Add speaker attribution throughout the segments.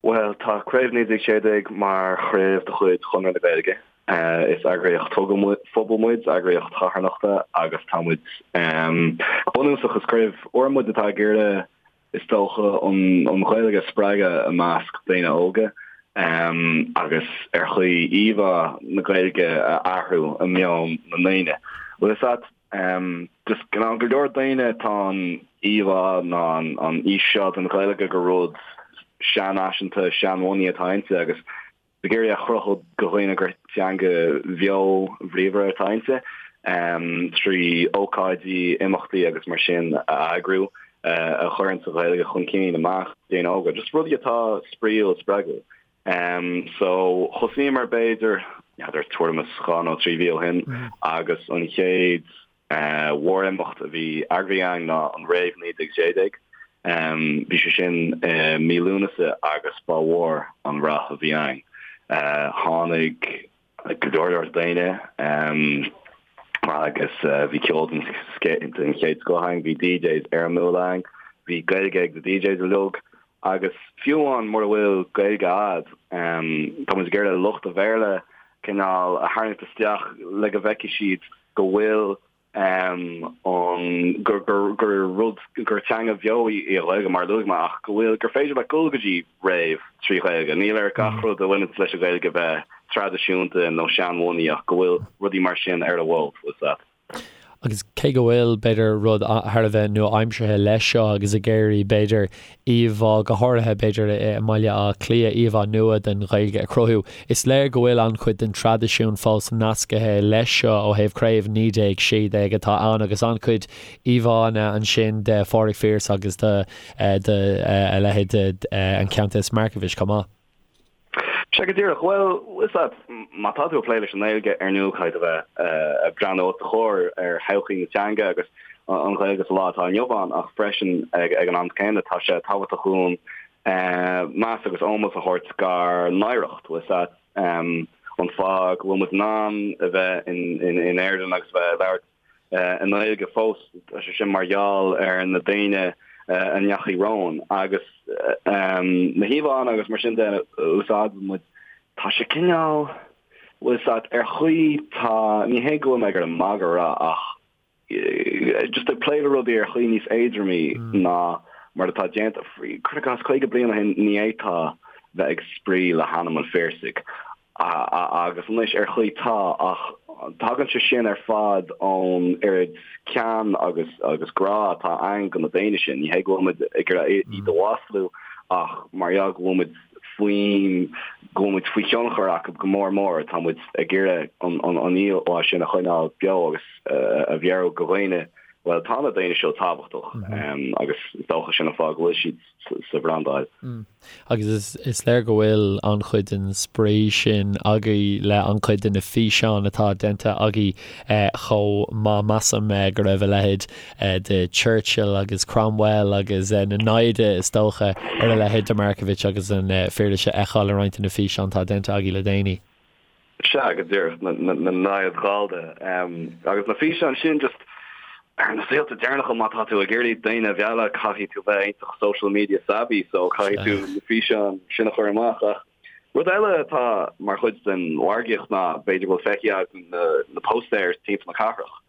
Speaker 1: Bhuel, tá Craobh 1916 mar chraobh de chuid Chonradh na Gaeilge. Is eagraíocht phobail muid, eagraíocht charthanachta agus tá muid, go bunúsach, is craobh úr muid atá ag iarraidh, is dócha, an Ghaeilge a spreagadh i measc daoine óga agus ar chaoi íomhá na Gaeilge a athrú i meon na ndaoine. Bhfuil fhios a't? Just go leor daoine tá an íomhá ná an fhís seo den Ghaeilge gur rud seanfhaiseanta, seanbhunaithe atá inti agus ag iarraidh a chruthú do dhaoine gur teanga bheo bhríomhar atá inti trí ócáidí, imeachtaí agus mar sin a eagrú a chuireann an Ghaeilge chun cinn i measc daoine óga. Just rudaí atá spraíúil, spreagúil. So thosaíomar b'fhéidir, n'fheadar, tuairim is 2 nó 3 mhí ó shin agus an chéad mhórimeacht a bhí eagraithe againn ná an Rave 1916. Bhí sé sin i mí Lúnasa agus ba mhór an rath a bhí ann. Tháinig go leor leor daoine agus bhí ceol den chéad scoth ann, bhí DJs éirimiúla ann, bhí Gaeilge ag na DJs uilig agus fiú amháin mura bhfuil Gaeilge a'd, tá muid ag iarraidh lucht an Bhéarla cineál a tharraingt isteach le go bhfeicfidh siad go bhfuil an gur gur gur rud gur teanga bheo í an Ghaeilge mar a luaigh mé ach go bhfuil gur féidir leat dul go dtí rave trí Ghaeilge. Níl ar gach rud a bhaineann leis an Ghaeilge bheith traidisiúnta nó seanbhunaithe ach go bhfuil rudaí mar sin ar a bhfuil fhios a't.
Speaker 2: Agus cé go bhfuil, b'fhéidir, rud thar a bheith nua-aimseartha leis seo agus ag iarraidh, b'fhéidir, íomhá, go háirithe, b'fhéidir, i mBaile Átha Cliath, íomhá nua den Ghaeilge a chruthú, is léir go bhfuil an-chuid den traidisiún fós nascaithe leis seo ó thaobh Craobh 1916 atá ann agus an-chuid íomhánna ansin de Phádraig Pearse agus de a leithéid de an Countess Markievicz chomh maith.
Speaker 1: Sea go díreach. Bhuel, fhios a't, má tá tú ag plé leis an nGaeilge, ar ndóigh caithfidh tú bheith ag breathnú os do chomhair ar thodhchaí na teanga agus an Ghaeilge sa lá atá inniu ann ach freisin ag an am céanna tá sé tábhachtach dúinn meas agus ómós a thabhairt dár n-oidhreacht, bhfuil fhios a't, an fáth go bhfuil muid in ann a bheith in Éirinn agus a bheith ag labhairt i nGaeilge fós, tá sé sin mar gheall ar na daoine a ndeachaigh romhainn agus na híomhánna agus mar sin de a úsáideann muid, tá sé cineál, bhfuil fhios a't, ar chaoi tá, ní hé go bhfuil mé ag iarraidh magadh a rá ach just ag plé le rudaí ar chaoi níos éadromaí ná mar atá déanta, cuir i gcás 50 bliain ó shin ní fhéadfá bheith ag spraoi le hainm an Phiarsaigh Agus anois, ar chaoi, tá, ach tagann sé sin ar fad ón oiread cean agus agus grá atá againn do na daoine sin. Ní hé go bhfuil muid ag iarraidh iad a mhaslú ach mar gheall go bhfuil muid faoin, go bhfuil muid faoi thionchar acu go mór mór, tá muid ag iarraidh an an íomhá sin a choinneáil beo agus a mheabhrú do dhaoine, bhuel, tá na daoine seo tábhachtach agus is dócha sin an fáth go bhfuil siad sa bhrandáil.
Speaker 2: Agus is léir go bhfuil an-chuid den spraoi sin agaibh le an-chuid de na físeáin atá déanta agaibh chomh maith. Measaim go raibh a leithéid de Churchill agus Cromwell agus na naimhde is dócha ar a leithéid de Markievicz agus an Phiarsaigh a fheiceáil i roinnt de na físeáin atá déanta agaibh le déanaí.
Speaker 1: Sea, go díreach, na naimhde Ghallda. Agus na físeáin sin, just, ar na saolta deireanacha, má tá tú ag iarraidh daoine a mhealladh, caithfidh tú bheith iontach social media savvy, so caithfidh tú na físeáin sin a chur amach. Ach rud eile atá mar chuid den mhargaíocht ná, b'fhéidir go bhfuil feicthe agat na póstaeir timpeall na cathrach,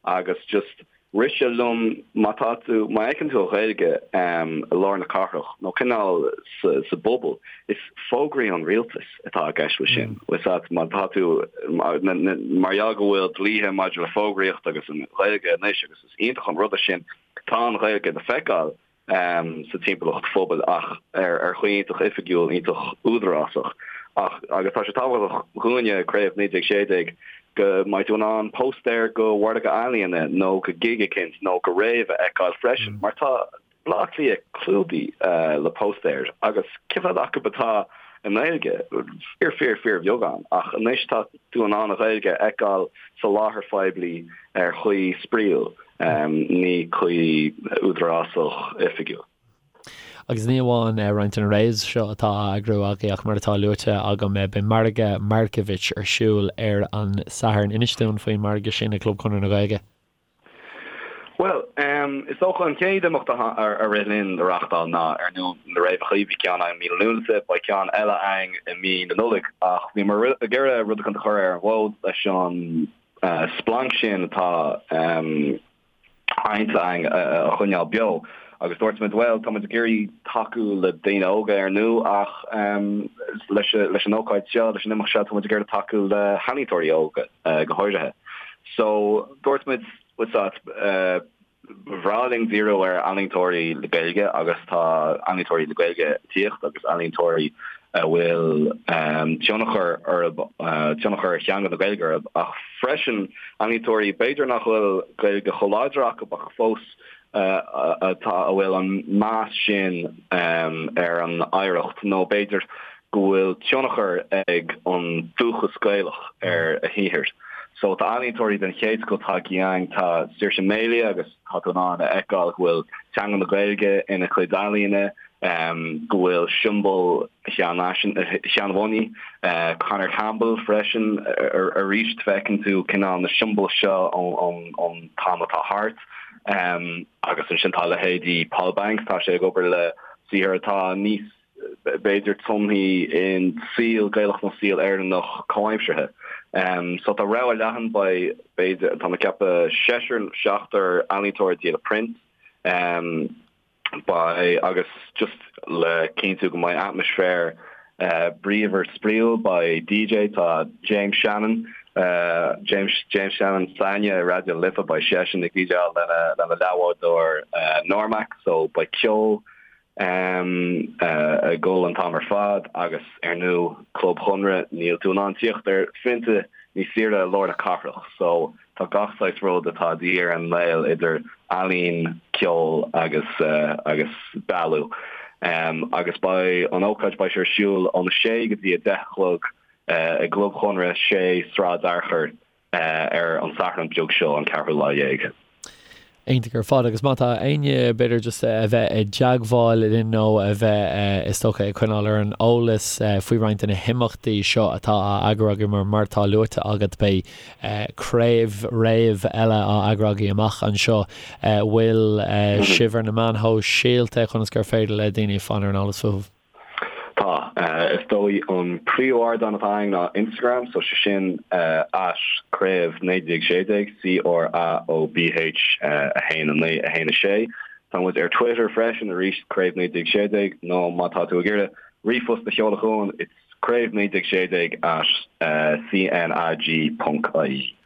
Speaker 1: agus just rith sé liom má tá tú, má fheiceann tú an Ghaeilge i lár na cathrach nó cineál sa bpobal, is fógraí an rialtais atá i gceist leis sin. Bhfuil fhios a't, má tá tú, mar gheall go bhfuil dlíthe maidir le fógraíocht agus an Ghaeilge anois agus is iontach an rud é sin, tá an Ghaeilge le feiceáil. sa timpeallacht phobail ach ar chaoi iontach oifigiúil, iontach údarásach. Ach, agus tá sé tábhachtach dhúinne, Craobh 1916, go mbeidh tú in ann póstaer go mhargadh ealaíona nó go gig eicínt nó go rave a fheiceáil freisin, mar tá Baile Átha Cliath clúdaithe le póstaeir agus cé mhéad acu atá i nGaeilge? Fíor, fíor, fíorbheagán. Ach anois tá tú in ann an Ghaeilge a fheiceáil sa láthair phoiblí ar chaoi spraíúil. ní caoi údarásach oifigiúil.
Speaker 2: Agus ní amháin roinnt de na raves seo atá á eagrú agaibh ach mar atá luaite agam beidh Margadh Markievicz ar siúl ar an Satharn. Inis dúinn faoin margadh sin ag Club Chonradh na Gaeilge.
Speaker 1: Bhuel, Is dócha an chéad imeacht a rith linn a reachtáil ná ar ndóigh na Fréamhacha, bhí ceann againn i mí na Lúnasa, beidh ceann eile againn i mí na Nollag ach bhíomar ag iarraidh rud éicint a chur ar an bhfód leis an splanc sin atá adhainte againn a choinneáil beo agus dúirt muid bhuel tá muid ag iarraidh tacú le daoine óga ar ndóigh ach leis leis an ócáid seo, leis an imeacht seo tá muid ag iarraidh tacú le healaíontóirí óga go háirithe. So dúirt muid What's that? Ba bhreá linn díriú ar ealaíontóirí le Gaeilge agus tá ealaíontóirí le Gaeilge ag tíocht agus ealaíontóirí a bhfuil tionchar orthu, tionchar theanga na Gaeilge orthu ach freisin ealaíontóirí b'fhéidir nach bhfuil Gaeilge chomh láidir acu ach fós atá, a bhfuil an meas sin ar an oidhreacht nó b'fhéidir go bhfuil tionchar ag an dúchas Gaelach ar a shaothar. So tá ealaíontóirí den chéad scoth tagtha againn, tá Saoirse Melia agus tá tú in ann a fheiceáil go bhfuil teanga na Gaeilge ina cuid ealaíne, go bhfuil siombail Sheán Mhoney, Conor Campbell freisin, arís feiceann tú cineál na siombail seo ón t-am atá thart. Agus ansin tá leithéidí Paul Banks, tá sé ag obair le saothar atá níos b'fhéidir tumtha in saol Gaelach nó saol Éireannach comhaimseartha. So tá rogha leathan, beidh, b'fhéidir, tá mé ag ceapadh seisear, seachtar ealaíontóir ag díol print. Beidh, agus just le cinntiú go mbeidh atmaisféar bríomhar spraíúil, beidh DJ, tá James Shannon, James, James Shannon s'againne i Raidió na Life, beidh seisean ag DJáil lena, lena leathbhádóir Normac, so beidh ceol, ag dul an t-am ar fad agus ar ndóigh Club Chonradh níl tú in ann tíocht ar phionta níos saoire i lár na cathrach so tá gach saghas rud atá de dhíth ar an nGael idir ealaín, ceol agus agus bealú. Agus beidh an ócáid beidh sé ar siúl óna sé go dtí a deich a chlog i gClub Chonradh, 6 Sráid Fhearchair. ar an Satharn beag seo, an ceathrú lá dhéag.
Speaker 2: Iontach ar fad. Agus má tá éinne, b'fhéidir, just a bheith i dteagmháil linn nó a bheith, is dócha, ag coinneáil ar an eolas faoi roinnt de na himeachtaí seo atá á eagrú agaibh, mar mar atá luaite agat, beidh craobh, réamh eile á eagrú agaibh amach anseo. Bhfuil sibh ar na meáin shóisialta conas gur féidir le daoine fáil ar an eolas fúibh?
Speaker 1: Tá. Is dóigh an príomh-ardán atá againn ná Instagram, so sé sin at craobh 1916, C-R-A-O-B-H 1 9 1 6. Tá muid ar Twitter freisin, arís craobh 1916, nó má tá tú ag iarraidh ríomhphost a sheoladh chugainn, it's craobh 1916 at cnag ponc ie.